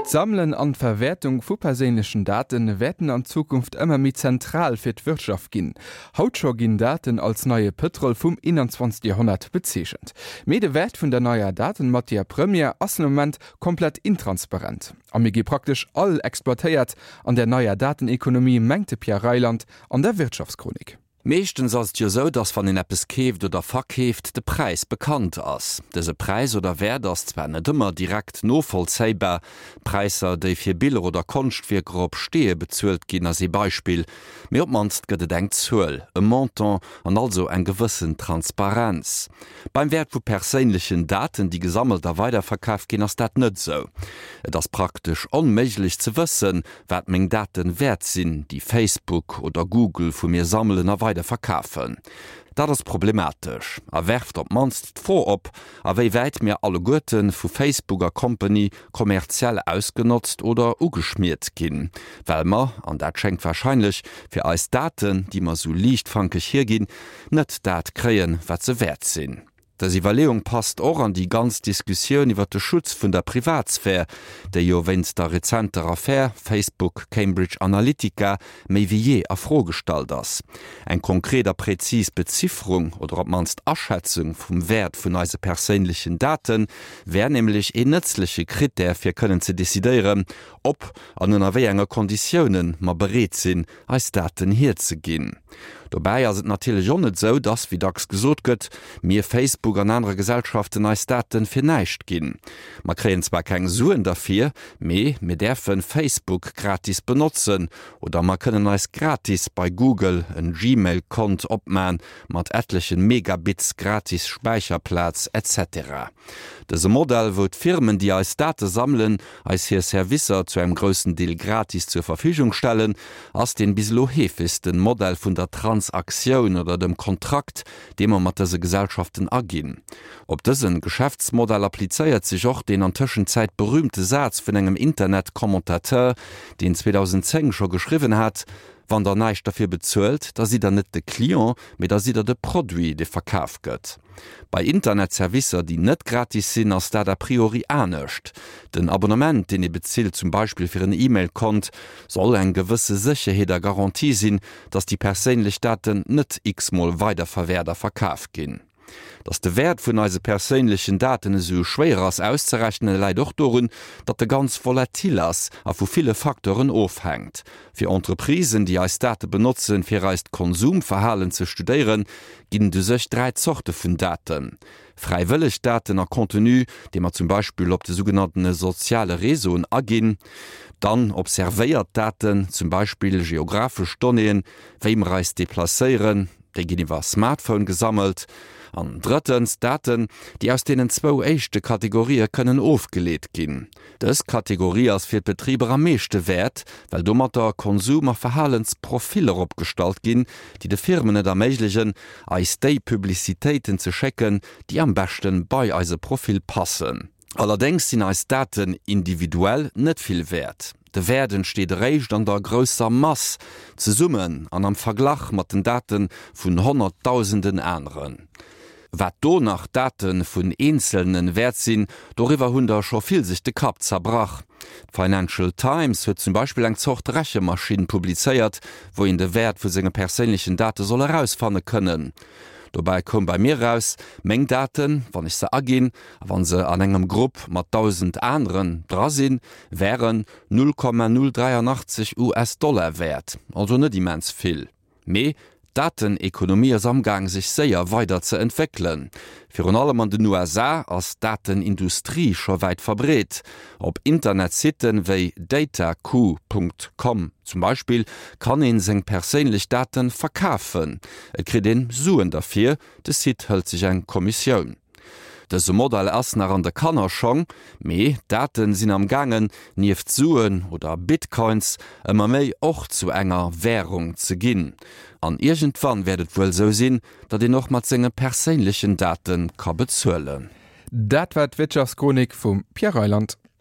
D'Sammelen an d'Verwäertung vu perséinlechen Date wäerten an Zukunft ëmmer méi zentral fir d'Wirtschaft ginn. Haut scho ginn Daten als neie Pëtrol vum 21. Joerhonnert bezeechent. Mee de Wäert vun der neier Datenmatière première ass den Moment komplett intransparent a mir gi praktesch all exploitéiert an der neier Datenekonomie, mengt de Pierre Reyland an der Wirtschaftschronik. Meeschtens ass et jo sou, dass wann een eppes keeft oder verkeeft, de Präis bekannt ass. Dëse Präis oder Wäert ass zwar net ëmmer direkt novollzéibar, Präisser déi fir Biller oder Konschtwierker op Steeë bezuelt ginn ass ee Beispill, mee op d'mannst gëtt et eng Zuel, e Montant an also eng gewëssen Transparenz. Beim Wäert vu perséinlechen Daten, déi gesammelt a weiderverkaf ginn, ass dat net sou. Et ass praktesch onméiglech ze wëssen, wat meng Daten wäert sinn, déi Facebook oder Google vu mir sammelen a weider verkafen. Dat ass problematesch a werft op d'mannst d'Fro op, a wéi wäit mir alleguerte vu Facebook a Company kommerziell ausgenotzt oder ugeschmiert ginn, well mer, an dat schéngt warscheinlech, fir eis Daten, déi mer sou liichtfankeg hierginn, net dat kréien, wat se wäert sinn. Dës Iwwerleeung passt och an déi ganz Diskussioun iwwer de Schutz vun der Privatsphär, déi jo wéinst der rezenter Affär Facebook-Cambridge Analytica méi wéi jee a Fro gestallt ass. Eng konkret a präzis Bezifferung oder op d'mannst Aschätzung vum Wäert vun eise perséinlechen Date wär nämlech een nëtzleche Krittär fir kënnen ze decidéieren, ob an ënner wéi enge Konditiounen mer bereet sinn, eis Daten hierzeginn. Dobäi ass et natierlech och net esou, dass, wéi dacks gesot gëtt, mir Facebook an anere Gesellschaften eis Daten fir näischt ginn. Mer kréien zwar keng Suen derfir, mee mir däerfen Facebook gratis benotzen oder mer kënnen eis gratis bei Google en Gmail Kont opman mat etlechen Megabits gratis Späicherplaz etc. Dëse Modell, wou d'Firmen déi eis Date sammelen, eis hir Servicer zu engem groussen Deel gratis zur Verfügung stellen, ass deen bis elo heefegsten Modell vun der Transaktioun oder dem Kontrakt, dee mer mat dëse Gesellschaften aginn. Op dësen Geschäftsmodell applizéiert sech och deen an Tëschenzäit berühmte Saz vun engem Internet-Commentateur, deen 2010 scho geschriwwen hat, Wann der näischt derfir bezuelt, da sidd der net de Client, mee da sidd der de Produit, dee verkaf gëtt. Bei Internetservicer, déi net gratis sinn, ass dat a priori anescht. Den Abonnement, deen ee bezilt, zum Beispill fir en E-Mail-Kont, soll eng gewësse Sécherheet a Garantie sinn, datt déi perséinlech Daten net x-mol weiderverwäert a verkaf ginn. Datt de Wäert vun eise perséinlechen Daten esou schwéier ass auszerechnen, läit och dorun, datt e ganz volatil ass a vu ville Facteuren ofhänkt. Fir Entreprisen, déi eis Date benotzen, fir eist Konsumverhalen ze studéieren, ginn et u sech 3 Zorte vun Daten, Fräiwëlleg Daten a Contenu, dee mer zum Beispill op de sougenanntene soziale Réseauen aginn, dann observéiert Daten, zum Beispill geographesch Donnéeën, wéi mer eis deplacéieren, déi ginn iwwer Smartphone gesammelt, an drëttens Daten, déi aus deenen zwou éischte Kategorië kënnen ofgeleet ginn. Dës Kategorie ass fir d'Betriber am meeschte wäert, well domatter Konsum a Verhalensprofiller opgestallt ginn, déi de Firmen et erméiglegen, eis déi Publicitéiten ze schécken, déi am beschte bei eise Profil passen. Allerdéngs sinn eis Daten individuell net vill wäert. De Wäert entsteet eréischt an der grousser Mass, zesummen an am Verglach mat den Date vun Honnertdausenden aneren. Wat do nach d'Date vun Eenzelne wäert sinn, doriwwer hunn der scho vill sech de Kapp zerbrach. D'Financial Times huet zum Beispill eng Zort Rechemaschinn publizéiert, wou een de Wäert vu senge perséinlechen Date soll erausfanne kënnen. Dobäi koum bei mir eraus, meng Daten, wann ech se aginn a wann se an engem Grupp mat 1.000 aneren dra sinn, wären 0,083 US-Dollar wäert, also net immens vill. Mee d'Datenekonomie ass amgaang sech séier weider ze entwéckelen. Virun allem an den USA ass d'Datenindustrie scho wäit verbreet. Op Internetsitten wéi datacoup. Com zum Beispill kann een seng perséinlech Daten verkafen. Et kritt een Suen derfir, de Site hëlt sech eng Kommissioun. Dëse Modell ass nach an de Kannerschong, mee d'Daten sinn am gaangen, nieft Suen oder Bitcoins, ëmmer méi och zu enger Währung ze ginn. An iergendwann wäert et wuel sou sinn, datt een och mat senge perséinlechen Date ka bezuelen. Dat war d'Wirtschaftschronik vum Pierre Reyland.